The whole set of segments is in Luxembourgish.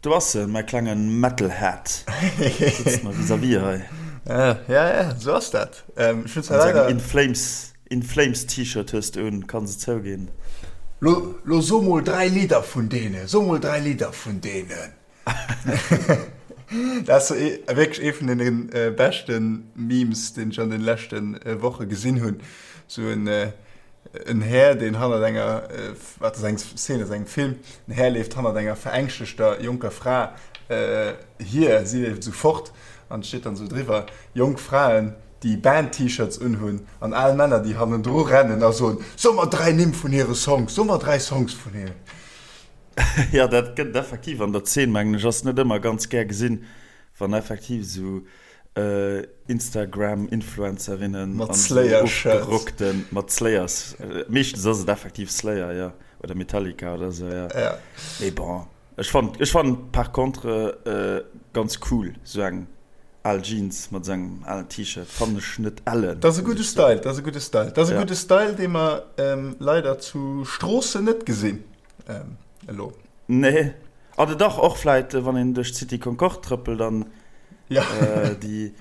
Do ass en, mäi klenge Metalhead. Sëtzt mer vis-à-vis hei. Ja, ja, ja, sou ass dat. Ech hunn zwar leider. In Flames, In Flames T-Shirt hues de un, kanns et zouginn. Lo, lo so mol 3 Lidder vun deenen, so mol 3 Lidder vun deenen. Dat ass wierklech ee vun deene beschte Memes, deen ech an den leschte Woche gesinn hunn. Sou en, en Här, deen hannert enger, wat ass eng Szene aus engem Film, en Här leeft hannert enger verängschtegter jonker Fra hier, si leeft esou fort an et steet dann esou driwwer, Jonk Fraen, déi Band-T-Shirts unhunn an al Männer, déi hannendru rennen a soen, So mer 3 Nimm vun hire Songs, so mer 3 Songs vun hinnen. Jo, dat gëtt et effektiv an der Zeen, mengen ech. Ass net ëmmer ganz gär gesinn, wann effektiv esou Instagram-Influencerinnen Mat an esou Slayer-Shirts. ofgerockten, mat Slayers, meeschtens ass et effektiv Slayer, jo, oder Metallica oder esou, jo. Ja. Mee bon, ech fannen, ech fannen par contre ganz cool, esou eng al Jeans mat esou engem alen T-Shirt fannen ech net ellen, Dat ass e gudde Style, dat ass e gudde Style. Dat ass e gudde Style, dee mer leider zu Stroossen net gesinn. Elo. Nee. Oder dach, och vläit, wann een duerch d'City Concorde trëppelt an ja. déi,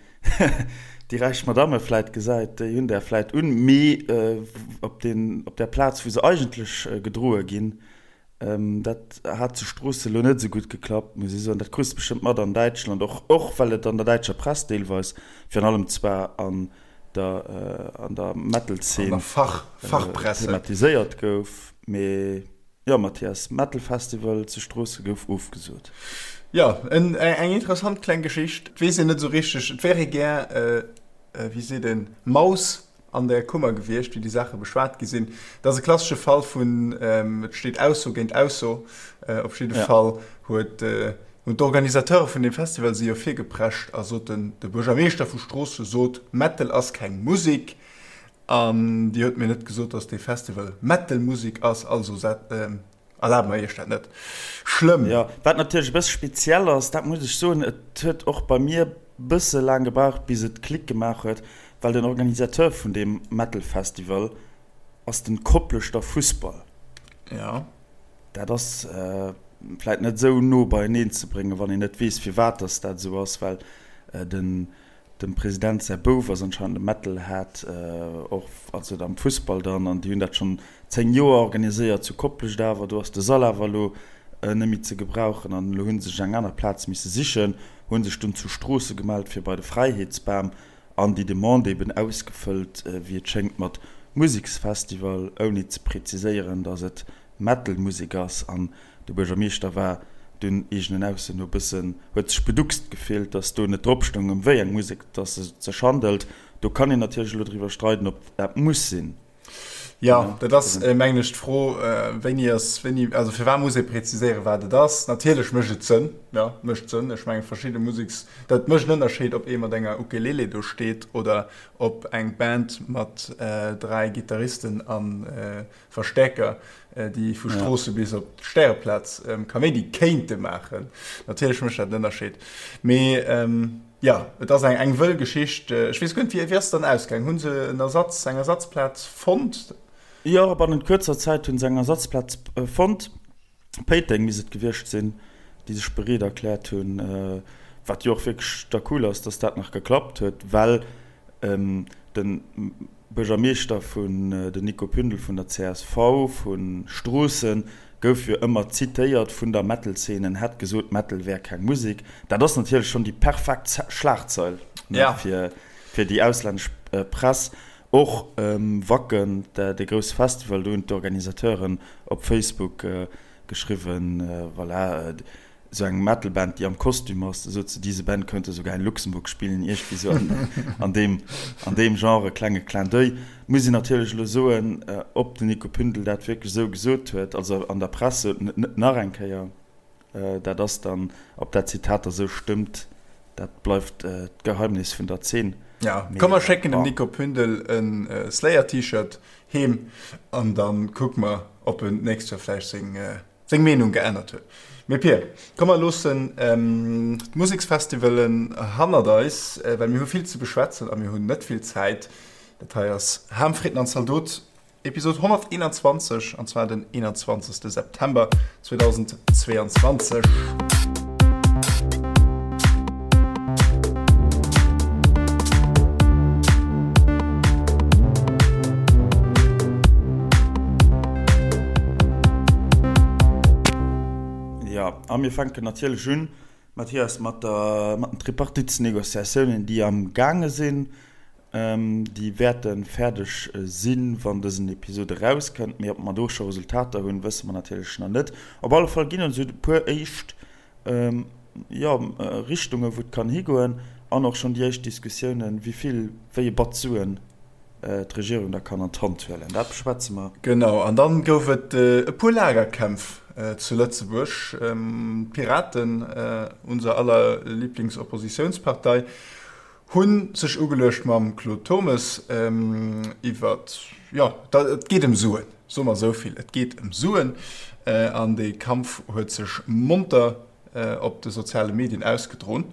déi räich Madamme vläit gesäit, déi hunn där vläit un, mee op den, op där Plaz, wou se eigentlech gedroe ginn, dat hat zu Stroossen elo net esou gutt geklappt, muss ech soen. Dat krus de bestëmmt mat an Däitschland och, och well et an der däitscher Press deelweis, virun allem zwar an der, an der Metal-Zeen An der Fach, Fachpresse. thematiséiert gouf. Mee jo Mathias, Metal Festival zu Stroossen gouf ofgesot. Jo, eng interessant kleng Geschicht. Et weess een net esou richteg, et wär ee gär, wéi seet een, Maus an der Kummer gewiescht, wéi déi Saache beschwat gi sinn. Et ass e klassesche Fall vun et steet Ausso géint Ausso. Op jidde Fall huet, hunn d'Organisateure vun deem Festival si jo virgeprescht a soten, de Buergermeeschter vu Stroosse sot, Metal ass keng Musek. An Dir huet mir net gesot, dass dee Festival Metal-Musik ass, also erlabe mer Iech dat net. Schlëmm. Jo, wat natierlech e bësse speziell ass, dat muss ech soen, et huet och bei mir bësse laang gebraucht, bis et Klick gemaach huet, well den Organisateur vun deem Metal-Festival ass den Kopleschter Fussball. Jo. Dat ass vläit net esou no beieneen ze bréngen, wann een net weess, firwat dass dat esou ass, well den Dem President säi Bouf ass anscheinend e Metalhead, och also am Fussball dann, an déi hunn dat schonn 10 Joer organiséiert zu Koplescht awer do ass de Sall awer elo net méi ze gebrauchen an elo hu sech eng aner Plaz misse sichen, hu sech dunn zu Stroosse gemellt fir bei de Fräiheetsbam an déi Demande eben ausgefëllt, wéi et schéngt mat Museksfestival, ouni ze preziséieren, datt et Metal-Musek ass an De Buergermeeschter war dunn eegenen Ausso no bëssen, huet sech beduckst gefillt, datt do net drop stoung, ëm wéi eng Musek datt et sech handelt. Do kann een natierlech elo driwwer streiden, ob dat muss sinn. Jo, dat ass, mengen ech, d'Fro, wéini ass wéini, also firwat muss ee preziséieren, wat et ass? Natierlech mécht et Sënn, jo, mécht Sënn. Ech mengen, verschidde Museks, dat mécht en Ënnerscheed, ob ee mat enger Ukelele do steet oder ob eng Band mat 3 Gittaristen a Verstäerker, déi vu Stroosse bis op d'Stäreplaz Kaméidi kéinte maachen. Natierlech mécht dat en Ënnerscheed. Mee jo, et ass eng eng wëll Geschicht. Ech weess guer net, wéi ass et dann ausgaang? Hu se en Ersatz, eng Ersatzplaz fonnt? Jo, bannent kuerzer Zäit hu se eng Ersatzplaz fonnt. Péiteng misst et gewiescht sinn, déi sech bereet erkläert hunn, wat jo och wierklech da cool ass, dass dat nach geklappt huet, well de Buergermeeschter vun, den Nico Pündel vun der csv vu Stroossen, gouf jo ëmmer zitéiert vun der Metal-Szene, en hätt gesot, Metal wär keng Musek. Dat ass natierlech schonn déi perfekt Schlagzeil fir déi auslännesch Press. Och Wacken, dee grousse Festival, do hunn d'Organisateuren op Facebook geschriwwen, voilà, esou eng Metal-Band, déi am Kostüm ass, sot se, diese Band könnte sogar in Luxemburg spielen, iergendwéi esou an deem, an deem Genre, klenge Clin d'oeil. Muss een natierlech elo soen, ob den Nico Pündel dat wierklech esou gesot huet, also an der Press sot en et net nach eng Kéier. Dat ass dann, ob dat Zitat da sou stëmmt, dat bleift d'Geheimnis vun der Zeen. Ja, komm mer schécken dem Nico Pündel e Slayer-T-Shirt heem an da kucke mer, ob en d'nächst Joer vläicht seng seng Meenung geännert huet. Mee Pir, komm mer loossen d'Museksfestivalen hannert eis, well mir hu vill ze beschwätzen a mir hunn net vill Zäit. Dat hei ass Ham, Fritten an Zaldot, Episod 121, an zwar den 21. September 2022. A mir fänken natierlech un, Mathias, mat der, mat den Tripartitsnegociatiounen, déi am gaange sinn. Déi wäerte fäerdeg sinn, wann dësen Episod erauskënnt. Mee ob mer do scho Resultater hunn, wësse mer natierlech nach net. Op alle Fall ginn et esou e puer éischt, jo, Richtungen, wou et kann higoen an och schonn déi éischt Diskussiounen, wéi vill, wéi e Batz Suen d'Regierung da kann an d'Hand huelen. Dat beschwätze mer. Genau. An dann gouf et e puer Lagerkämpf zu Lëtzebuerg. D'Piraten, unser aller Lieblingsoppositionspartei, Hu sech ugeluecht mam Claude Turmes iwwer, jo, et geet ëm Suen, soe mer esou vill, et geet ëm Suen. An dee Kampf huet sech monter op de soziale Medien ausgedroen.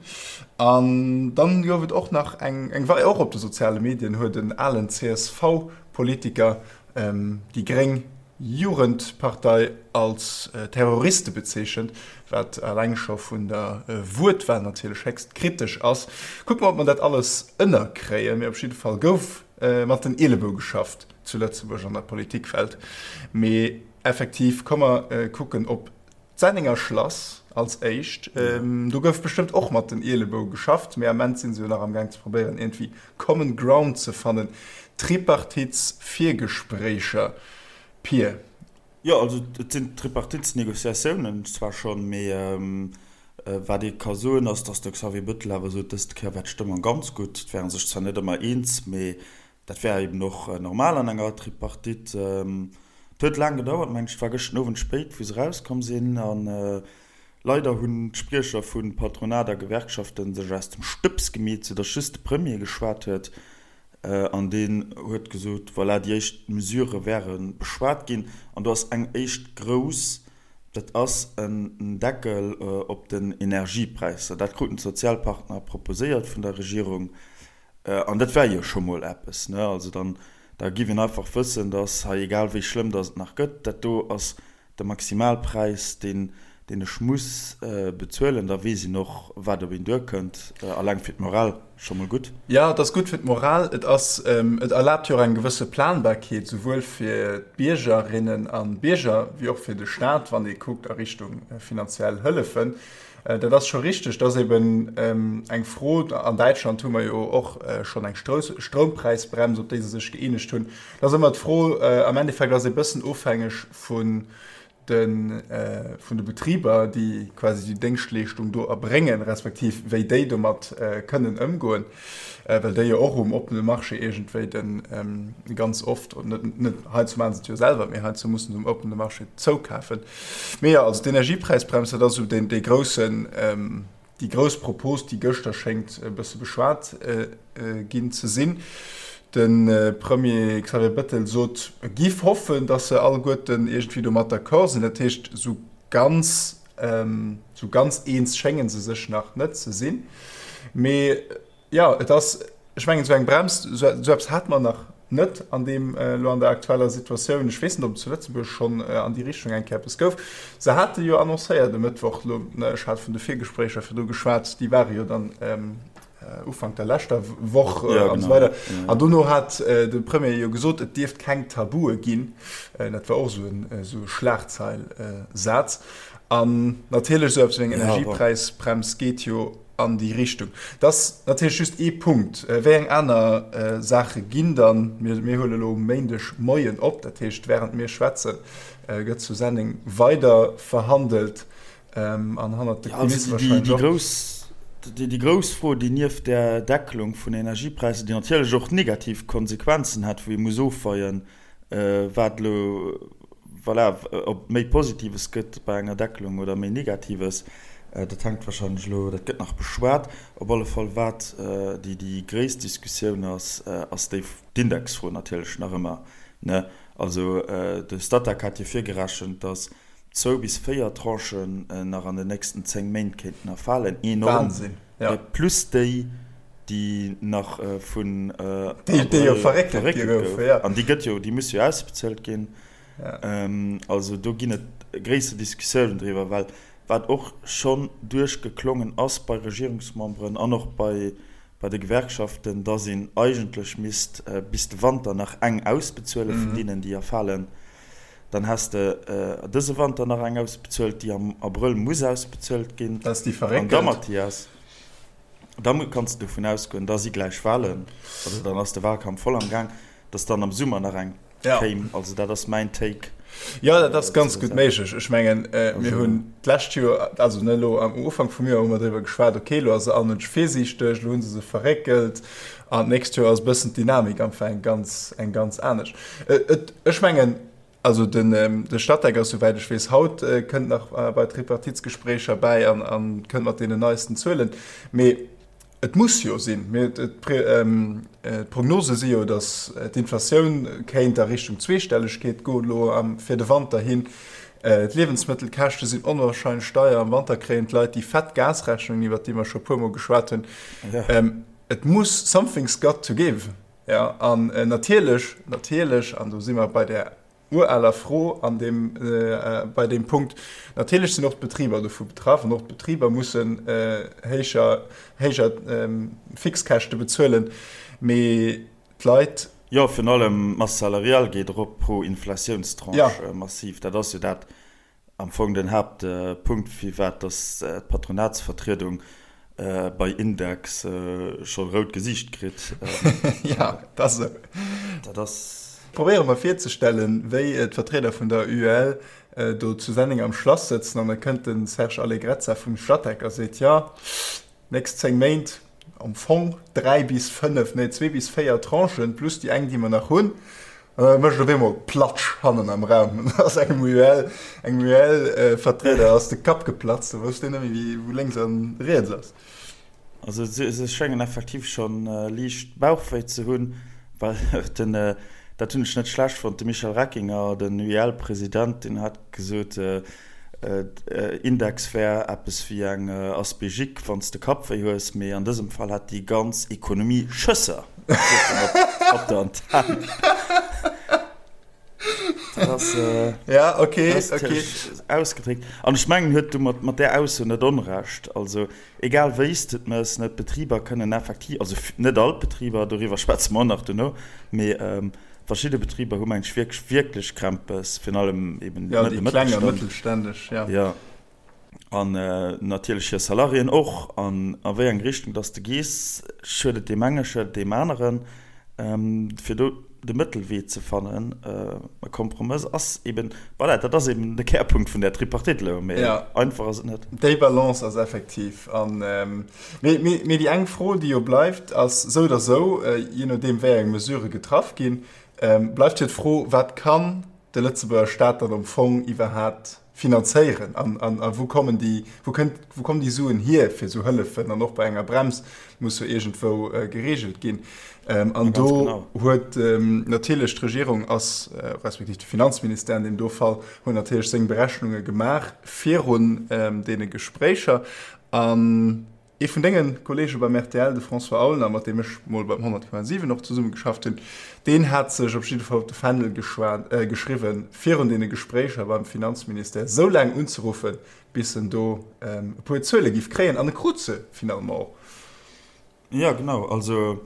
An dann gouf et och nach eng, eng Wei, och op de soziale Medien huet en alen CSV-Politiker déi gréng Jugendpartei als Terroriste bezeechent, wat eleng scho vun der Wuertwahl natierlech héchst kritesch ass. Kucke mer, ob mer dat alles ënnerkréien. Mee op jidde Fall gouf mat den Ielebou geschafft zu Lëtzebuerg an der Politikwelt. Mee effektiv, komm mer kucken op D'Sennenger Schlass als éischt. Do gouf bestëmmt och mat den Ielebou geschafft, mee am Ament si se jo nach am Gaang ze probéieren iergendwéi common ground ze fannen. Tripartitsvirgespréicher, Pir. Jo, also et sinn Tripartitsnegociatiounen zwar schonn, mee wat ee ka soen ass, datt de Xavier Bettel awer sot, dëst Kéier war d'Stëmmung ganz gutt. Et wäre sech zwar net ëmmer eens, mee Dat wär eben och normal an enger Tripartite. Et huet laang gedauert, mengen ech. Et war gëschten Owend spéit, wou se erauskomm sinn. A leider hunn d'Spriecher vu Patronat a Gewerkschaften sech aus dem Stëbs gemeet, soudatt just de Premier geschwat huet. An deen huet gesot, voilà, déi éischt Mesurë wäre beschwat ginn. An do ass eng éischt grouss, dat ass en Deckel op den Energiepräisser. Dat kruten d'Sozialpartner proposéiert vun der Regierung. An dat wär jo scho mol eppes, ne? Also dann, da giff een einfach wëssen, dass hei, egal wéi schlëmm dass et nach gëtt, dat do ass de Maximalpräis, deen, deen ech muss bezuelen. Da weess een och, wat op een duerkënnt. Alleng fir d'Moral scho mol gutt. Jo, et ass gutt fir d'Moral. Et ass, et erlaabt jo och eng gewësse Planbarkeet, souwuel fir d'Biergerinnen a Bierger wéi och fir de Staat, wann ee kuckt a Richtung finanziell Hëllefen. Dat ass scho richteg. Dat ass eben eng Fro. An Däitschland hu mer jo och schonn eng Stroumpräisbrems, op déi se sech gëeenegt hunn. Dat ass ëmmer d'Fro. Am Endeffekt ass ee bëssen ofhängeg vun de vun de Betriber, déi quasi déi Déngschtleeschtung do erbréngen, respektiv wéi déi domat kënnen ëmgoen, well déi jo och um oppene Marché iergendwéi de ganz oft, net net heiansdo maache se et jo selwer, mee heiansdo mussen se um oppene Marché zoukafen. Mee jo, also d'Energiepräisbrems, dat ass esou deen, dee groussen, déi grouss Propos, déi gëschter schéngt e bësse beschwat ginn ze sinn. De Premier Xavier Bettel sot, e giff hoffen, datt se alleguerten iergendwéi domat d'accord sinn. Dat heescht, esou ganz, esou ganz eens schénge se sech nach net ze sinn. Mee Jo, et ass, ech mengen, esou eng Brems, esou eppes hate mer nach net an deem, elo an der aktueller Situatioun. Ech weess net, ob et zu Lëtzebuerg schonn an déi Richtung eng Kéier eppes gouf. Se hate jo annoncéiert e Mëttwoch elo, ech hat vun de Virgespréicher virdru geschwat, déi ware jo dann Ufank der leschter Woch an esou weider. An dono hat de Premier jo gesot, et dierft keng Tabue ginn. Dat war och esou en, esou e Schlagzeil-Saz. An natierlech esou eppes wéi eng Energiepräisbrems geet jo an déi Richtung. Dat ass natierlech just ee Punkt. Wéi eng aner Saache ginn dann? Mir huele elo um Méindeg Moien op, dat heescht, wärend mir schwätzen, gëtt zu Senneng weider verhandelt an hannert de Kulisse warscheinlech och. Déi grouss Fro, déi nieft där Deckelung vun Energiepräisser, déi natierlech och negativ Konsequenzen hätt, wou ee muss ofweien, wat elo, voilà, ob méi Positives gëtt bei enger Deckelung oder méi Negatives, dat hänkt wahrscheinlech elo, dat gëtt nach beschwat. Op alle Fall, wat déi, déi gréisst Diskussioun ass, ass déi, d'Indexfro natierlech nach ëmmer, ne? Also de Statec hat jo virgerechent, datt zwou bis véier Tranchen nach an den nächsten 10 Méint kéinten erfalen. Enorm. Wahnsinn, ja. Plus déi, déi nach vun Déi, déi jo verréckelt gi goufen, ja. An déi gëtt jo, déi muss jo ausbezuelt ginn. Also do ginn et gréisser Diskussiounen driwwer, well wat och schonn duerchgeklongen ass bei Regierungsmemberen an och bei bei de Gewerkschaften, dass een eigentlech misst bis de Wanter nach eng ausbezuele vun deenen, déi erfalen. Dann häss de dëse Wanter nach eng ausbezuelt, déi am Abrëll muss ausbezuelt ginn. Dat ass déi verréckelt. An da, Mathias, da kanns de dovun ausgoen, da si gläich Wahlen, also dann ass de Wahlkampf voll am Gaang, dass dann am Summer nach eng kéim. Also dat ass mäin Take. Jo, dat ass ganz gutt méiglech. Ech mengen, mir hunn d'lescht Joer, also net elo, am Ufank vum Joer hu mer driwwer geschwat, okay, elo ass se all Mënsch virsiichteg, elo hu se se verréckelt an d'nächst Joer ass e bëssen d'Dynamik einfach eng ganz, eng ganz anescht. Et, ech mengen, also den, de Statec ass, souwäit ech weess, haut kënnt nach bei d'Tripartitsgespréicher bäi an, an kënnt mat deenen neisten Zuelen. Mee et muss jo sinn. Mee d'Prognose si jo, datt d'Inflatioun kéint a Richtung Zweestellegkeet goen elo am, fir de Wanter hin. D'Liewensmëttelkäschte sinn onwahrscheinlech deier. Am Wanter kréien d'Leit déi fett Gasrechnungen, iwwert déi mer scho e puermol geschwat hunn. Et muss, something's got to give. Jo, an natierlech, natierlech, an do si mer bei där uraler Fro an deem, bei deem Punkt, natierlech sinn och d'Betriber dovu betraff an och d'Betriber mussen héijer, héijer Fixkäschte bezuelen, mee d'Leit. Jo, virun allem d'Masse salariale geet erop pro Inflatiounstranche massiv. Dat ass jo dat, Am Fong den Haaptpunkt, firwat dass d'Patronatsvertriedung bei Index scho rout Gesiicht kritt. Jo, dat ass esou. Dat ass. Probéiere mer virzestellen, wéi d'Vertrieder vun der UEL do zu Senneng am Schlass sëtzen an da kënnt de Serge Allegrezza vum Statec a seet, Jo, Nächst 10 Méint am Fong 3 bis 5, nee 2 bis 4 Tranchen, plus déi eng, déi mer nach hunn. An da mécht et op eemol Platsch hannen am Raum. An da ass engem UEL, engem UEL-Vertrieder ass de Kapp geplatzt, da wousst deen net méi, wou lénks a riets ass. Also se schéngen effektiv scho liicht Bauchwéi ze hunn, well den, dat hunn ech net schlecht fonnt, de Michel Reckinger, den UEL-President, deen hat gesot, Index wär eppes wéi eng Aspégique wann s de Kappwéi hues, mee an dësem Fall hätt déi ganz Ekonomie Schësser, sot en op der Antenn. Dat ass Ja, okay, okay. ausgedréckt. An ech mengen, huet du mat där Ausso net Onrecht. Also egal wéi s de et mëss, net d'Betriber kënnen effektiv, also net all d'Betriber, doriwwer schwätze mer och nach duerno, mee Verschidde Betriber hu meng ech wierklech, wierklech Krämpes, virun allem eben ja, de kleng a mëttelstänneg, ja. Ja. An natierlech hir Salariéen och. An a wéi eng Richtung dass de gees, schuet et deem enge, schuet et deem aneren. Fir do de Mëttelwee ze fannen, e Kompromëss ass eben, voilà, dat ass eben de Kärpunkt vun där Tripartite elo, mee einfach ass et net. Déi Balance ass effektiv an, mee, mee déi eng Fro, déi jo bleift, ass sou oder sou, jee nodeem wéi eng Mesurë getraff ginn, bleift jo d'Fro, Wat kann de Lëtzebuerger Staat dann am Fong iwwerhaapt finanzéieren an, an, a wou kommen déi, wou kënnt, wou kommen déi Suen hier fir esou Hëllefen? An och bei enger Brems muss jo iergendwou geregelt ginn. An do huet natierlech d'Regierung ass, respektiv de Finanzministère an deem do Fall, huet natierlech seng Berechnunge gemaach virun deene Gespréicher. An ee vun denge Kollege beim rtl, de François Aulner, mat deem ech mol beim 100,7 och zesummegeschafft hunn, deen hat sech op jidde Fall op de Fändel geschriwwen, virun deene Gespréicher beim Finanzministère esou laang unzeruffen, bis en do e puer Zuele giff kréien. An e krut se finalement och. Jo, genau. Also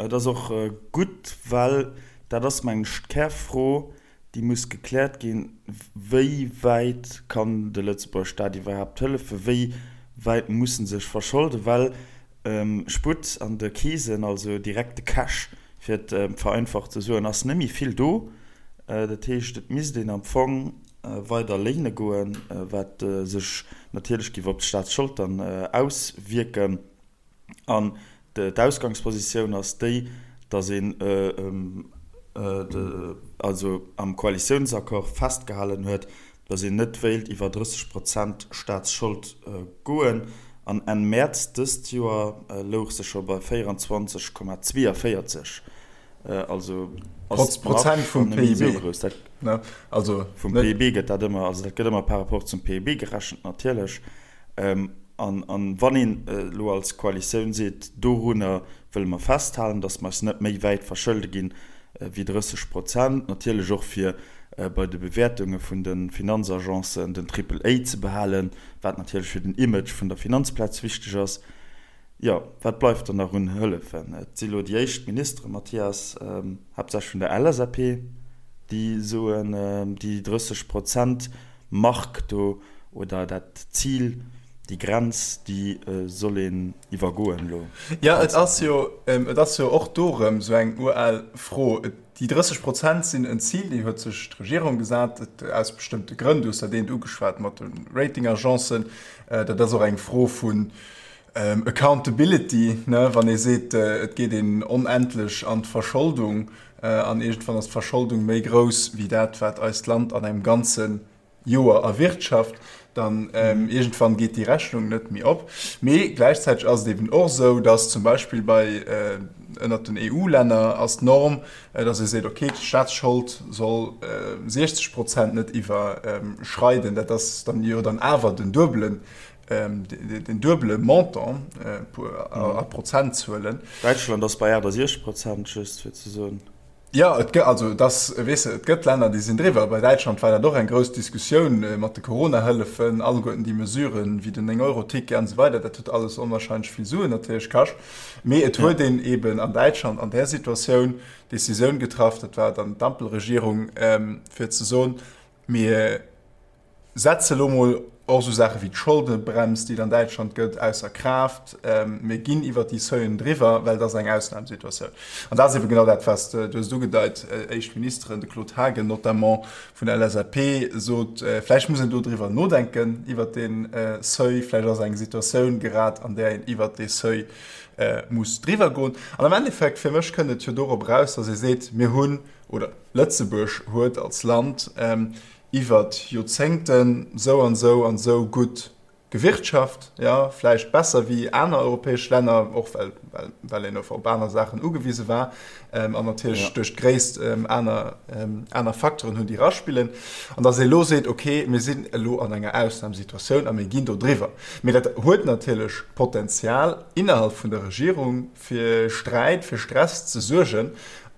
et ass och gutt, well dat ass, mengen ech, d'Kärfro, déi muss gekläert ginn, Wéi wäit kann de Lëtzebuerger Staat iwwerhaapt hëllefen? Wéi wäit muss en sech verscholden? Well Sputt an de Keesen, also direkte Cash, fir et vereinfacht ze soen, ass net méi vill do. Dat heescht, et misst een am Fong weider léine goen, wat sech natierlech géif op d'Staatsschold dann auswierken. An d'Ausgangspositioun ass déi, datt een also am Koalitiounsaccord festgehalen huet, datt een net wéilt iwwer 30 Prozent Staatsschold goen. An Enn Mäerz dëst Joer louch se scho bei 24,42. Also ass d'Marge schonn net méi esou grouss. Vum PIB gëtt dat ëmmer, also dat gëtt ëmmer par rapport zum PIB gerechent natierlech. An wann een elo als Koalitioun seet, dorunner wëlle mer festhalen, datt mer eis net méi wäit verschëlde ginn wéi 30 Prozent, natierlech och fir bei de Bewäertunge vun de Finanzagencen den Triple A ze behalen, wat natierlech fir den Image vun der Finanzplaz wichteg ass, jo, wat bleift dann nach un Hëllefen? Et si elo déi éischt Ministere, Mathias, haaptsächlech vun der LSAP, déi. Déi soen, déi 30 Prozent Mark do oder dat Zil, déi Grenz, déi soll een iwwergoen elo. Jo, et ass jo, et ass jo och do erëm esou eng ural Fro. Déi 30 Prozent sinn en Zil, déi huet sech d'Regierung gesat, aus bestëmmte Grënn. Du hues dat eent ugeschwat mat de Ratingagencen. Dat ass och eng Fro vun Accountability, ne, wann ee seet, et geet een onendlech an d'Verscholdung an iergendwann ass d'Verscholdung méi grouss wéi dat, wat eist Land an engem ganze Joer erwirtschaft, dann iergendwann geet déi Rechnung net méi op. Mee gläichzäiteg ass et eben och esou, datt zum Beispill bei ënnert den EU-Länner ass d'Norm, datt ee seet, okay, d'Staatsschold soll 60 Prozent net iwwerschreiden. Dat ass dann jo dann awer den duebelen den duebele Montant a Prozentzuelen. Däitschland ass bei 68 Prozent, just fir ze soen. Jo, et gëtt, also et ass, weess de, et gëtt Länner, déi sinn driwwer. Bei Däitschland war dat och eng grouss Diskussioun mat de Corona-Hëllefen, alleguerten déi Mesuren, wéi den 9-Euro-Ticket an esou weider, dat huet alles onwahrscheinlech vill Suen natierlech kascht. Mee et huet een eeben an Däitschland an där Situatioun d'Decisioun getraff, dat war dann d'Ampelregierung, fir ze soen, mir Setze elo mol och esou Saache wéi d'Scholdebrems, déi et an Däitschland gëtt, ausser Kraaft. Mir ginn iwwert déi Seuilen driwwer, well et ass eng Ausnamsituatioun. An dat ass ebe genau dat, wat s de, du hues et ugedeit, éischt Ministeren, de Claude Haagen notamment vun der LSAP sot, vläicht muss een do driwwer nodenken, iwwert dee Seuil. Vläicht ass eng Situatioun grad, an där een iwwert dee Seuil muss driwwer goen. An am Endeffekt, fir mech kënnt et jo dorop eraus, datt ee seet, mir hunn, oder Lëtzebuerg huet als Land iwwert Joerzéngten sou an sou an sou gutt gewirtschaft, jo, vläicht besser wéi aner europäesch Länner, och well, well, well een op aner Saachen ugewise war an natierlech duerch d'Gréisst aner, aner Facteuren hunn, déi eraspillen, an datt ee elo seet, okay, mir sinn elo an enger Ausnamsituatioun a mir ginn do driwwer. Mee dat huet natierlech Potenzial innerhalb vun der Regierung, fir Sträit, fir Stress ze suergen.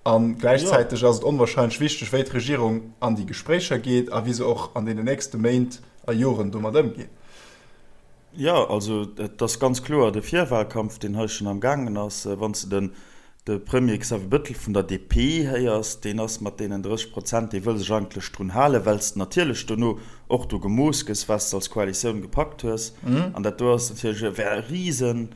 A gläichzäiteg ass et onwahrscheinlech wichteg, wéi d'Regierung an déi Gespréicher geet a wéi se och an deenen nächste Méint a Joren domat ëmgeet. Jo, also et ass ganz kloer de Virwahlkampf, deen hei schonn am gaangen ass. Wann s de den de Premier Xavier Bettel vun der DP héiers, deen ass mat deenen 30 Prozent, dee wëll sech eigentlech drun halen, well s de natierlech dono och do gemooss gëss, wat s de als Koalitioun gepackt hues. An dat do ass natierlech, wär e Risen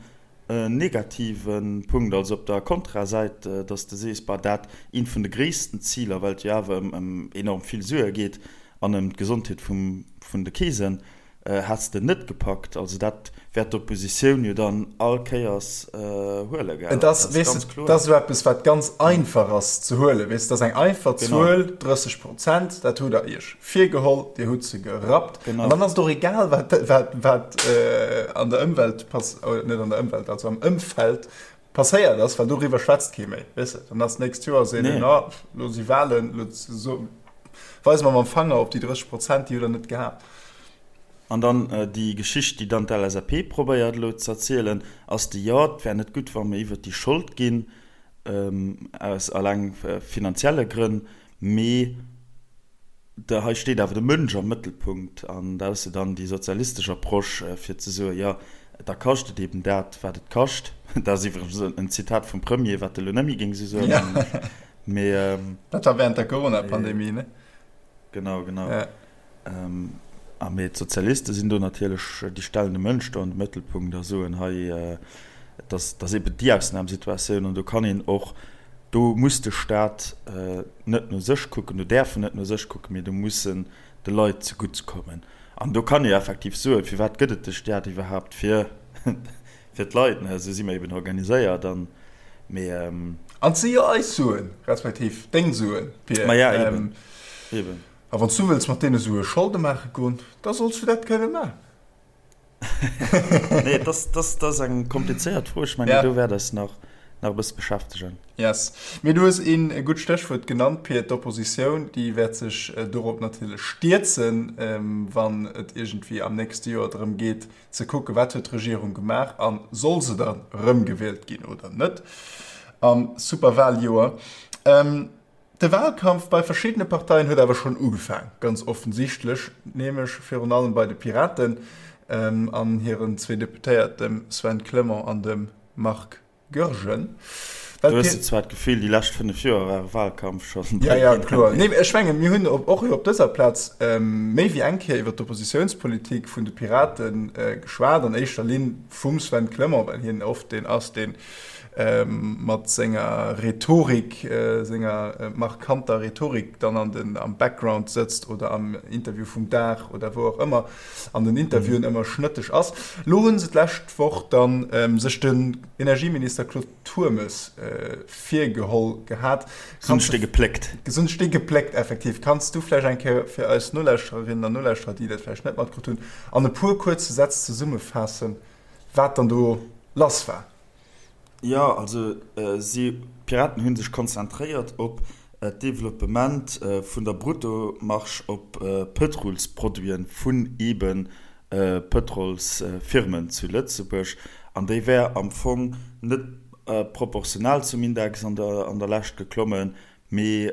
En negative Punkt, also op der Kontrasäit, dass de sees, bah, dat eent vun de gréissten Ziler, well et jo awer ëm enorm vill Sue geet an ëm d'Gesondheet vun de Keesen, häss de net gepackt. Also dat wäert d'Oppositioun jo dann all Kéiers huelen, gell? Et ass, weess de, dat ass esou eppes, wat ganz einfach ass ze huelen, weess de, dat ass eng einfach Zuel, 30 Prozent, dat hutt Der Iech virgeholl, Dir hutt se gerappt. An dann ass et och egal, wat, wat, wat an der Ëmwelt pass, net an der Ëmwelt, also am Ëmfeld passéiert ass, well doriwwer schwätzt kee méi, weess de. Dann ass d'nächst Joer seet een, ah, lo si Wahlen, lo so, weise mer mam Fanger op déi 30 Prozent, déi hutt Der net gehat. An dann déi Geschicht, déi dann d'LSAP probéiert elo ze erzielen, ass déi, jo, et wär net gutt, wa mer iwwert déi Schold ginn, aus alleng finanzielle Grënn, mee De, hei steet awer de Mënsch am Mëttelpunkt an dat ass jo dann déi sozialistesch Approche, fir ze soen, jo, da kascht et eben dat, wat et kascht. Dat ass iwwregens en Zitat vum Premier, wat e lo net méi géing esou soen, mengen ech. Mee. Dat war während der Corona-Pandemie, ne? Genau, genau. A mee d'Sozialiste sinn do natierlech, déi stellen de Mënsch do an de Mëttelpunkt a soen, hei, et ass, et ass eben déi Ausnamsituatioun an do kann een och, do muss de Staat net no sech kucken, do däerf en net no sech kucken, mee do muss en de Leit zegutt kommen. An do kann ee effektiv soen, firwat gëtt et de Staat iwwerhaapt? Fir fir d'Leit, ne? Esou si mer eben organiséiert an, mee. An et si jo eis Suen, respektiv deng Suen, Pir. Ma ja, eben, eben. A wann s du wëlls mat deene Sue Scholde maache goen, da solls du dat kënne maachen. Nee, dat ass, dat ass eng komplizéiert Fro. Ech mengen, do wäert eis nach, nach e bësse beschäftegen. Yes. Mee du hues een gutt Stéchwuert genannt, Pir, d'Oppositioun, déi wäert sech dorop natierlech stierzen, wann et iergendwéi am nächste Joer drëm geet, ze kucken, wat huet d'Regierung gemaach a soll se dann erëmgewielt ginn oder net am Superwaljoer. De Wahlkampf bei verschiddene Parteien huet awer schonn ugefaang, ganz offensichtlech, nämlech virun allem bei de Piraten an hiren zwee Deputéiert, dem Sven Clement an dem Marc Goergen. Well Du hues zwar d'Gefill, déi lescht 5 Joer war e Wahlkampf schonn. Ja, ja, kloer. Nee, ech mengen, mir hunn och op dëser Plaz méi wéi eng Kéier iwwer d'Oppositiounspolitik vun de Pirate geschwat, an éischter Linn vum Sven Clement, well hien oft deen ass, dee mat senger Rhetorik, senger markanter Rhetorik dann an den, am Background sëtzt oder am Interview vum Dag oder wou och ëmmer an den Interviewen ëmmer schnëtteg ass. Lo hu se d'lescht Woch dann sech den Energieminister Claude Turmes virgeholl gehat. Kanns du gepléckt. Gesund Stee gepléckt, effektiv. Kanns du vläicht eng Kéier fir eis Nolauschtererinnen an Nolauschterer, déi dat vläicht net matkritt hunn, an e puer kuerze Sätz zesummefaassen, wat dann do lass war? Jo, also si, d'Piraten hu sech konzentréiert op d'Developpement vun der Bruttomarge op Pëtrolsproduiten vun eebe Pëtrolsfirmen zu Lëtzebuerg, an déi wär am Fong net proportional zum Index an der Lescht geklommen, mee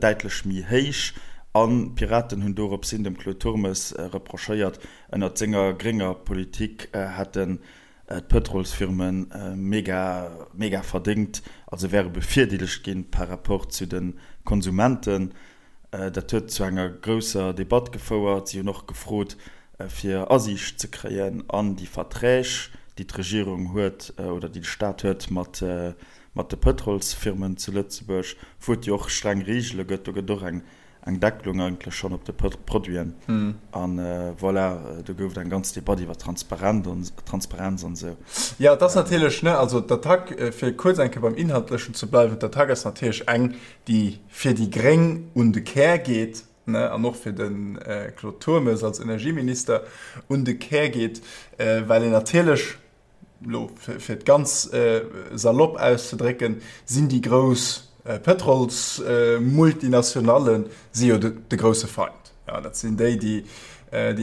däitlech méi héich. An d'Piraten hunn dorops hin dem Claude Turmes reprochéiert, ënnert senger grénger Politik hätten d'Pëtrolsfirme mega, mega verdéngt, also wäre bevirdeelegt ginn par rapport zu de Konsumenten. Dat huet zu enger grousser Debatt gefouert. Si hunn och gefrot, fir Asiicht ze kréien an déi Verträg, déi d'Regierung huet oder déi de Staat huet mat de Pëtrolsfirmen zu Lëtzebuerg, wou et jo och streng Reegele gëtt. Do gëtt och eng eng Deckelung eigentlech schonn op de Produiten. An voilà, do gouf et eng ganz Debatt iwwer Transparenz an esou. Jo, et ass natierlech, ne, also d'Attack, fir kuerz eng Kéier beim Inhaltlechen ze bleiwen, d'Attack ass natierlech eng, déi fir déi Gréng un de Kär geet, ne, an och fir de Claude Turmes als Energieminister un de Kär geet, well een natierlech, elo fir et ganz salopp auszedrécken, sinn déi grouss Pëtrolsmultinationale si jo de grousse Feind. Jo, dat sinn déi, déi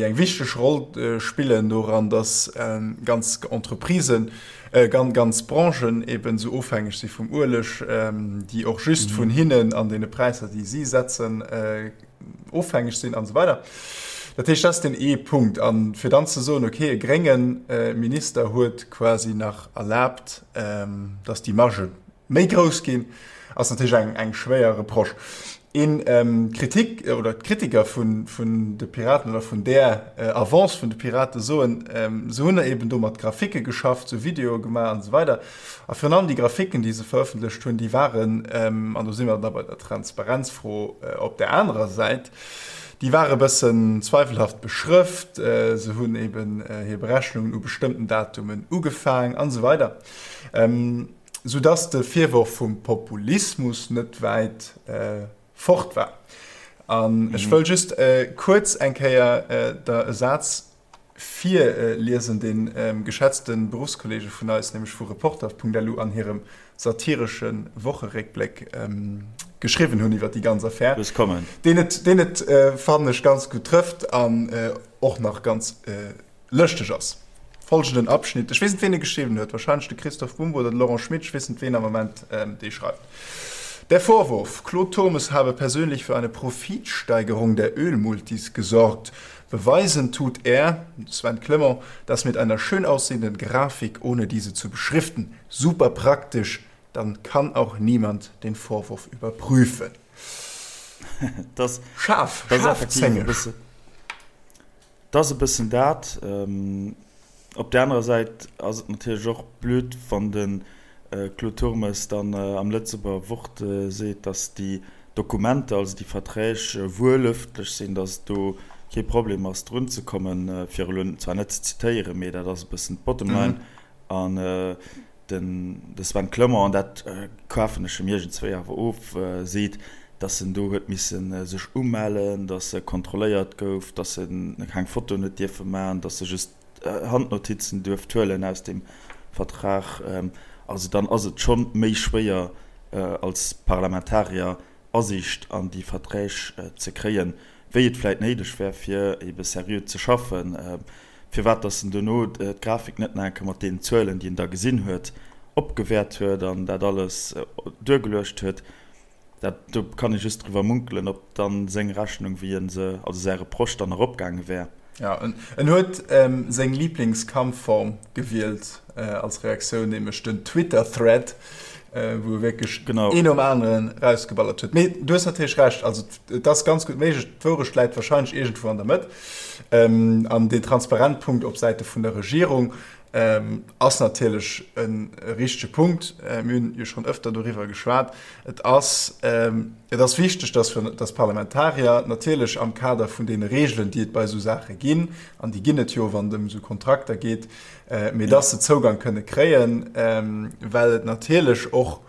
eng wichteg Roll spillen doran, datt ganz Entreprisen, ganz Branchen eben esou ofhängeg si vum Ueleg, déi och just vun hinnen an deene Präisser, déi si setzen, ofhängeg sinn an esou weider. Dat heescht, dat ass deen ee Punkt. A fir dann ze soen, okay, e grénge Minister huet quasi nach erlaabt, datt déi Margë méi grouss ginn, ass natierlech eng, eng schwéier Reproche. Een Kritik oder d'Kritiker vun, vun de Piraten oder vun där Avance vun de Pirate soen, se hunn eben do mat Graphike geschafft, sou Videoe gemaach an esou weider. A virun allem déi Graphiken, déi se verëffentlecht hunn, déi waren, an do si mer da bei der Transparenzfro op där anerer Säit, déi ware bëssen zweifelhaft beschrëft. Se hunn eben hir Berechnungen u bestëmmten Datumen ugefaang an esou weider, soudass de Virworf vum Populismus net wäit fort war. An ech wëll just kuerz eng Kéier der e Saz virliesen, dee geschätzte Beruffskollege vun eis, nämlech vu Reporter.lu an hirem satiresche Wocheréckbléck geschriwwen hunn iwwer déi ganz Affär, deen et, deen et, fannen ech, ganz gutt trëfft an och nach ganz lëschteg ass. Folgenden Abschnitt, ech weess net, ween e geschriwwen huet, wahrscheinlech de Christoph Bumbo oder de Laurent Schmit, ech weess net, ween am Moment dee schreift. Der Vorwurf, Claude Turmes habe persönlich für eine Profitsteigerung der Ölmultis gesorgt, Beweisen tut er, Sven Clement, das mit einer schön aussehenden Grafik, ohne diese zu beschriften. Super praktisch, dann kann auch niemand den Vorwurf überprüfen. Das, Scharf, das scharfzängeg. Dat ass e bëssen dat. Op där anerer Säit ass et natierlech och blöd, wann de Claude Turmes dann am Lëtzebuerger Wort seet, datt déi Dokumenter, also déi Verträg, wuel ëffentlech sinn, datt et do kee Problem ass drun ze kommen, fir elo zwar net ze zitéieren, mee dat ass e bëssen d'Bottom line. An den de Sven Clement, an dat kafen ech em iergendswéi awer of, seet, datt en do huet misse sech umellen, datt e kontrolléiert gouf, datt en keng Fotoen huet dierfe maachen, datt e just Handnotizen duerft huelen aus deem Vertrag. Also dann ass et scho méi schwéier als Parlamentarier Asiicht an déi Verträg ze kréien, wéi et vläit néideg wär, fir ebe seriö ze schaffen. Firwat datt en dono d'Grafik net nach eng Kéier mat deenen Zuelen, déi en da gesinn huet, opgewäert huet an dat alles duergeluecht huet, dat, do kann ee just driwwer munkelen, ob dann seng Rechnung, wéi e se, also säi Reproche dann eropgaange wär. Jo, en huet seng Liblingskampfform gewielt als Reaktioun, nämlech den Twitter-Thread. wou e wierklech een nom aneren erausgeballert huet. Mee du hues natierlech Recht, also et ass ganz gutt méiglech, d'Wourecht läit warscheinlech iergendwou an der Mëtt. An deen transparent Punkt op Säite vun der Regierung ass natierlech e richtege Punkt. Mir hunn jo schonn ëfter doriwwer geschwat. Et ass, et ass wichteg, dass wir, dass d'Parlamentarier natierlech am Kader vun deene Regeln, déi et bei esou Saache ginn, an déi ginn et jo, wann et ëm esou Kontrakter geet, mee dass se Zougang kënne kréien, well et natierlech och,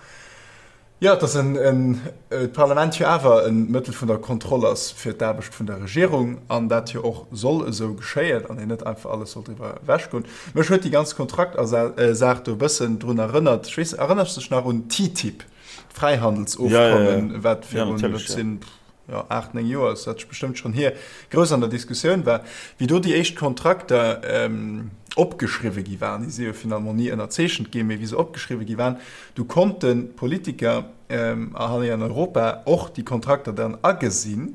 jo, dass en, en, d'Parlament jo awer e Mëttel vun der Kontroll ass fir d'Aarbecht vun der Regierung an dat jo och soll esou geschéien an een net einfach alles soll driwwer ewechgoen. Mech huet déi ganz Kontraktersaach do e bëssen drun erënnert, ech weess, erënners de dech nach un TTIP, d'Fräihandelsofkommen, wat virun, dat sinn, jo, 8, 9 Joer ass dat bestëmmt schonn hier, grouss an der Diskussioun war, wéi do déi éischt Kontrakter opgeschriwwe gi waren, déi si jo finalement ni ënnerzeechent ginn, mee wéi se opgeschriwwe gi waren, du konnten d'Politiker hei an Europa och déi Kontrakter dann agesinn,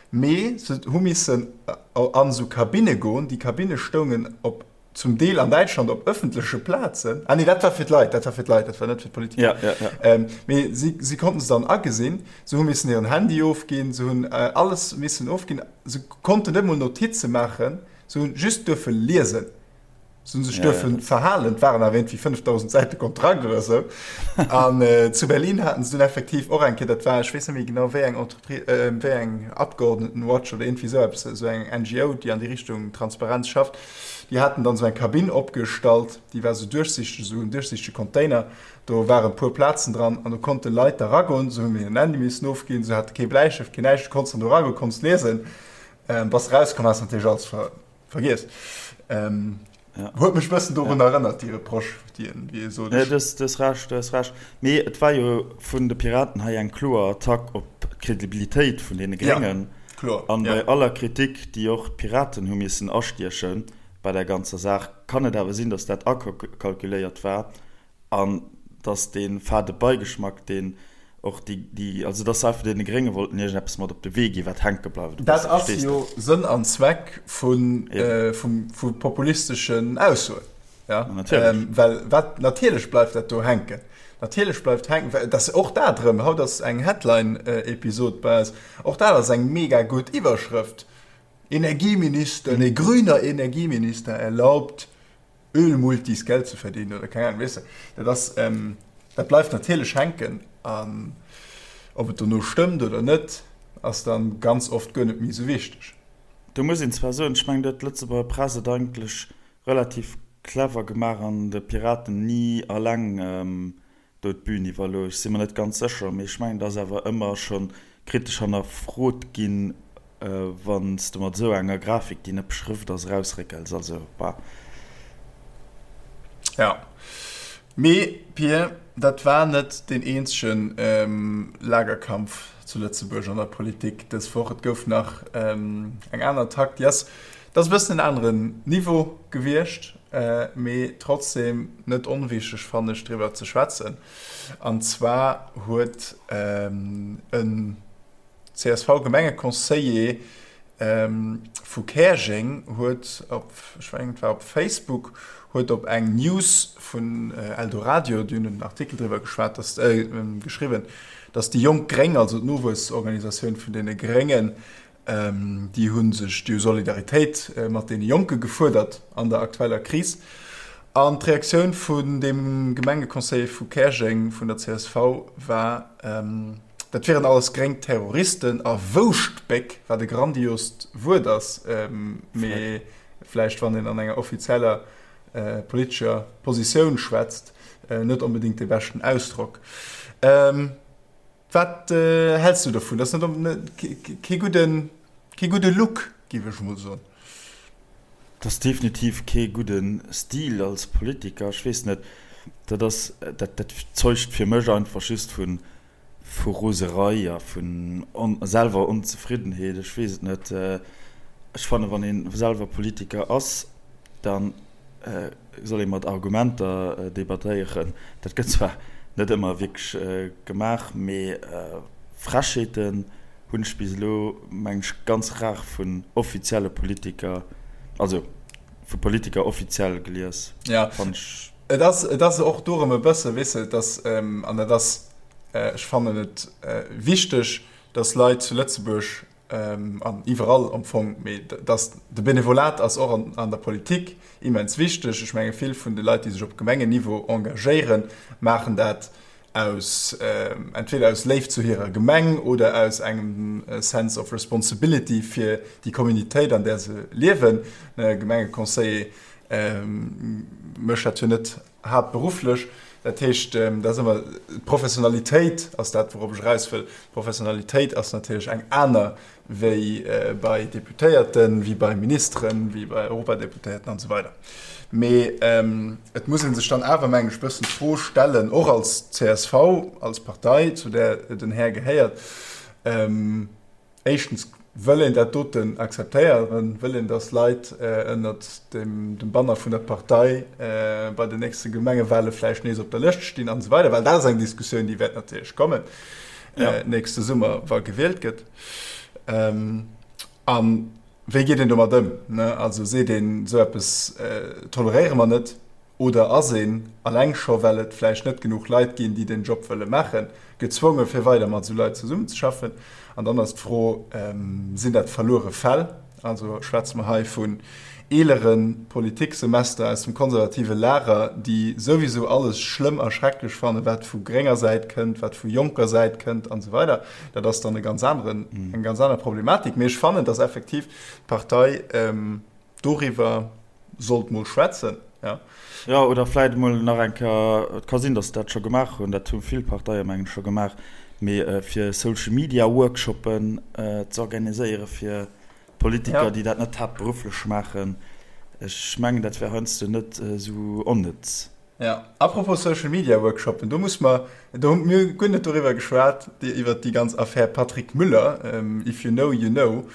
mee se hu missen an esou Kabinne goen, déi Kabinne stoungen op zum Deel an Däitschland op ëffentleche Plazen. Ah nee, dat war fir d'Leit, dat war fir d'Leit, dat war net fir d'Politiker. Ja, ja, ja. Ähm, mee si, si konnten se dann agesinn, se hu missen hiren Handy ofginn, se hunn äh, alles missen ofginn, se konnten net mol Notize maachen, se hunn just duerfe liesen. Se hunn sech Ja, ja, duerfe dat. verhalen, et waren awer iergendwéi 5000 Säite Kontrakt oder sou. An äh, zu Berlin haten se dunn effektiv och eng Kéier, dat war, ech weess net méi genau wéi eng Entreprise, äh, wéi eng Abgeordnetenwatch oder iergendwéi sou eppes, esou eng NGO, déi an déi Richtung Transparenz schafft, Déi haten dann esou eng Kabinn opgestallt, déi war esou duerchsichteg, esou en duerchsichtege Container. Do waren e puer Plazen dran an do konnte Leit da ragoen. Se hunn hiren Handy missen ofginn, se hate kee Bläistëft, keen näischt. Du konns dann do ragoen, konns liesen. Bass erauskomm, has natierlech alles ver vergiess. Huet mech e bëssen dorun erënnert, déi Reproche, déi en, wéi e sot, Nee, ech. du hues, du hues Recht, du hues Recht. Mee et war jo vun de Piraten hei eng kloer Attack op d'Credibilitéit vun deene Ja. Gréngen. Kloer, An ja. bei aller Kritik, déi och d'Piraten hu missen astieche bei der ganzer Saach, kann et awer sinn, datt dat akalkuléiert war an datt dee fade Beigeschmack, deen och déi, déi, also datt se einfach deene Grénge wollten iergendeppes mat op de Wee ginn, wat hänke bleift e Dat bësse. ass Verstees de? jo Sënn an Zweck vu, Eben. vu populisteschen Aussoen. Ja, Ma natierlech. ähm, well wat, natierlech bleift dat do hänken. Natierlech bleift hänken, well dat och dat erëm, haut ass eng Headline-Episod bei eis, och dat ass eng mega gutt Iwwerschrëft, Energieminister, nee, grüner Energieminister erlaubt Ölmultis Geld zu verdienen oder keng Ahnung, weess de. Dat ass, ähm, dat bleift natierlech hänken an ob et dono stëmmt oder net, ass dann ganz oft guer net méi esou wichteg. Do muss een zwar soen, ech mengen, do huet d'Lëtzebuerger Press et eigentlech Relativ clever gemaach an de Piraten ni alleng do d'Bühn iwwerlooss. Ech si mer net ganz sécher, mee ech mengen, et ass awer ëmmer scho kritesch hannerfrot ginn, wann s de mat esou enger Grafik, déi net beschrëft ass, erausréckels. Also, bah. Jo, mee Pir, dat war net deen eenzege Lagerkampf zu Lëtzebuerg an der Politik dës Woch. Et gouf nach eng aner Attack, déi ass Et ass e bëssen en aneren Niveau gewiescht, mee trotzdem net onwichteg fannen ech driwwer ze schwätzen. An zwar huet en CSV-Gemengeconseiller vu Käerjeng huet op, ech mengen et war op Facebook, huet op eng News vun Eldoradio, déi hunn en Artikel driwwer geschwat, dass, geschriwwen, dass déi Jonk Gréng, also d'Nowuessorganisatioun vun deene Gréngen, Déi hu sech, déi hu Solidaritéit mat deene Jonke gefuerdert an der aktueller Kris. An d'Reaktioun vun deem Gemengeconseiller vu Käerjeng vun der csv war, dat wieren alles gréng Terroristen a Wouschtbéck, wat e grandiost Wuert ass, mee vläicht wann een an enger offizieller politescher Positioun schwätzt, net onbedéngt dee beschten Ausdrock. Wat häls du dovun? Dat ass net kee gudden, kee gudde Look, géif ech emol soen. Dat ass definitiv kee gudde Stil als Politiker. Ech weess net, dat ass, dat, dat zeugt fir mech einfach just vu, vu Roserei a vun selwer Onzefriddenheet. Ech weess et net. Ech fannen, wann ee selwer Politiker ass, dann soll ee mat Argumenter debattéieren. Dat gëtt zwar net ëmmer wierklech gemaach, mee Frechheeten hunn ech bis elo, mengen ech, ganz rar vun offizielle Politiker, also vu Politiker offiziell gelies. Ja. Fannen ech. Et ass, et ass och dorëm e bësse, weess de, dass, an dat ass, ech fannen et wichteg, dass Leit zu Lëtzebuerg an iwwerall am Fong, mee dass de Benevolat ass och an, an der Politik immens wichteg. Ech menge vill vun de Leit, déi sech op Gemengenniveau engagéieren, maachen dat aus, entweder aus Léift zu hirer Gemeng oder aus engem Sense of responsibility fir déi Communitéit, an där se liewen. E Gemengeconseiller mécht dat jo net haaptberufflech. Dat heescht, dat ass ëmmer, d'Professionalitéit ass dat, wourop ech eraus wëll. D'Professionalitéit ass natierlech eng aner wéi bei Deputéierten, wéi bei Ministeren, wéi bei Europadeputéierten an esou weider. Mee et muss ee sech dann awer, mengen ech, e bëssen d'Fro stellen, och als csv, als Partei, zu där den Här gehéiert, Éischtens, wëll een dat doten akzeptéieren? Wëll een, datt Leit ënnert dem Banner vun der Partei bei den nächste Gemengewale vläicht nees op der Lëscht stinn an esou weider? Well dat ass eng Diskussioun, déi wäert natierlech kommen nächste Summer, wa gewielt gëtt. A wéi geet een domat ëm? Also seet een, esou eppes toleréiere mer net? Oder ass een, alleng scho well et vläicht net genuch Leit ginn, déi den Job wëlle maachen, gezwonge fir weider mat esou Leit zesummenzeschaffen? An dann ass d'Fro, Sinn dat verluere Fäll? Also schwätze mer hei vun eelere Politiksemester aus dem konservative Lager, déi souwisou alles schlëmm a schrecklech fannen, wat vu grénger Säit kënnt, wat vu jonker Säit kënnt an esou weider. Dat ass dann e ganz aneren, eng ganz aner Problematik. Mee ech fannen, dass effektiv d'Partei, doriwwer sollt mol schwätzen, ja. Jo, oder vläit emol nach eng Kéier, et ka sinn, datt se dat scho gemaach hunn, dat hu vill Parteie mengen ech scho gemaach, mee fir Social Media Workshoppen ze organiséiere fir Politiker, déi dat net haaptberufflech maachen. Ech mengen, dat wär heiansdo net esou onnëtz. Jo, apropos Social Media Workshoppen, do muss mer, do hu mir guer net doriwwer geschwat, iwwert déi ganz Affär Patrick Müller, if you know, you know,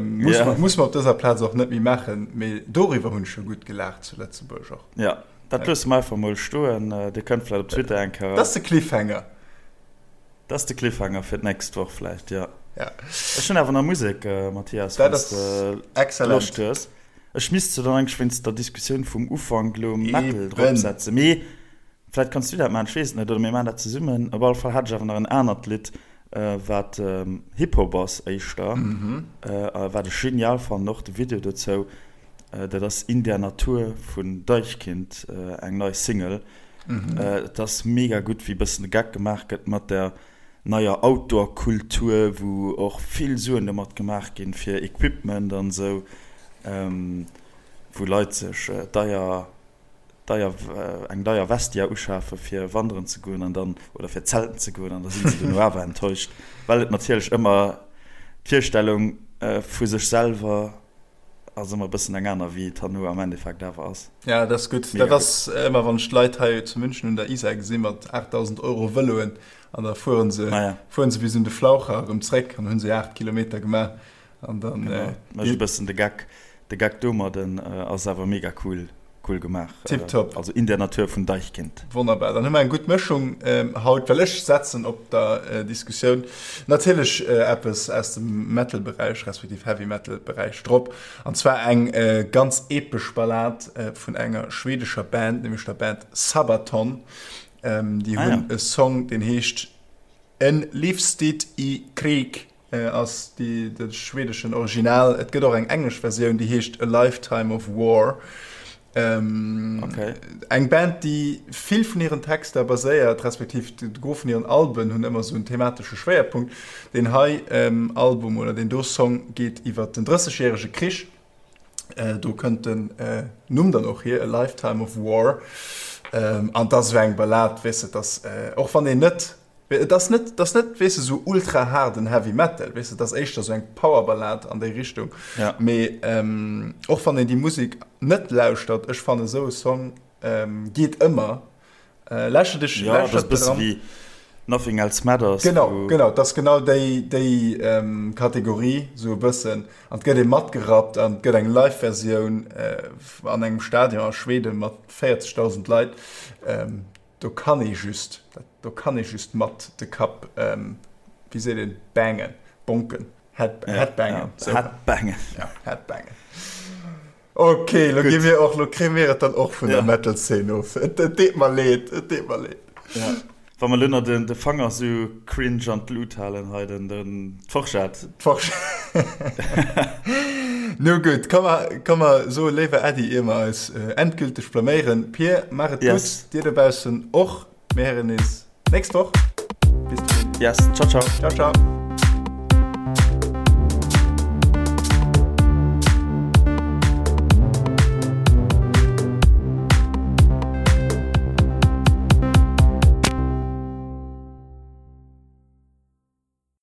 muss mer, muss mer op dëser Plaz och net méi maachen, mee doriwwer hunn ech jo gutt gelaacht zu Lëtzebuerg och. Jo, dat loosse mer einfach mol stoen, Dir kënnt vläicht op Twitter eng Kéier. Dat ass de Cliffhanger. Dat ass de Cliffhanger fir d'nächst Woch vläicht, jo. Ech hunn awer nach Musek, Mathias, wann s de Loscht hues. Ech misst se dann eigentlech wéinst der Diskussioun vum Ufank elo Metal drop setzen, mee vläit kanns du dat maachen, ech weess et net, oder mir maachen dat zesummen. Op alle Fall hat ech awer nach en anert Lidd, wat Hip Hop ass éischter, a wat ech genial fannen, och de Video dozou, dat ass In der Natur vun Deichkind, eng nei Single. Et ass mega gutt, wéi e bëssen de Geck gemaach gëtt mat der neier Outdoor-Kultur, wou och vill Suen domat gemaach ginn, fir Equipment an esou, wou Leit sech deier, deier, eng deier Vestia uschafe fir wanderen ze goen an dann, oder fir zelten ze goen an da sinn se duerno awer enttäuscht, well et natierlech ëmmer d'Virstellung vu sech selwer Ass ëmmer e bëssen eng aner wéi et herno am Endeffekt awer ass. Ja, dat ass gutt. Dat ass ëmmer wann ech d'Leit hei zu München un der Isar gesi mat 8.000 Euro Vëloen an da fueren se ah, ja. fueren se bis un de Flaucher erëm zréck an hunn se 8 Kilometer gemaach an dann genau. Äh, e bëssen de Geck de Geck domadden äh, ass awer mega cool. Cool gemaach. Tiptop. Also in der Natur vun Deichkind. Wonnerbar, dann hu mer eng gutt Mëschung haut, well ech setzen op der Diskussioun natierlech eppes aus dem Metal-Beräich, respektiv Heavy-Metal-Beräich drop, an zwar eng ganz epesch Ballad vun enger schwedescher Band, nämlech der Band Sabaton. Déi hunn e Song, deen heescht En livstid i krig. Ass déi de schwedeschen Original. Et gëtt och eng englesch Versioun, déi heescht A Lifetime of War. Okay. Eng Band, déi vill vun hiren Texter baséiert, respektiv de Gros vun hiren Alben hunn ëmmer esou en thematesche Schwéierpunkt. Deen hei Album oder deen do Song geet iwwer den Drëssegjärege Krich. Do kënnt den Numm dann och hier, A Lifetime of War. An 't ass esou eng Ballad, weess de, 't ass, och wann een net Et ass net, et ass net, weess de, sou ultra haarden Heavy Metal, weess de, et ass éischter sou eng Powerballad an déi Richtung. Ja. Mee och wann een déi Musek net lauschtert, ech fannen esou e Song geet ëmmer. Lauschter dech, Ja, dat ass e bësse wéi Nothing Else Matters. Genau, genau, et ass genau déi, déi Kategorie sou e bëssen. An et gëtt ee matgerappt an et gëtt eng Live-Versioun an engem Stadion a Schweden mat 40.000 Leit. Do kann ee just, do kann ee just mat de Kapp, wéi seet een, bangen, bonken, head, headbangen. Headbangen. Ja, headbangen. Ok, lo gi mir och, lo kréie mir et dann och vun der Metal-Szene of. Et deet mer leed, et deet mer leed. Ja. Wa mer lo nach den, de Fanger sou cringe an d'Lut halen hei, den, den, d'Forschett. D'Forschett. Nu gutt, komm mer, komm mer soe léiwer Äddi, ier mer eis endgülteg blaméieren. Pir, maach et gutt, Yes. dir dobaussen och. Mir héieren nees nächst Woch. Bis dohin. Yes, ciao, ciao. Ciao, ciao.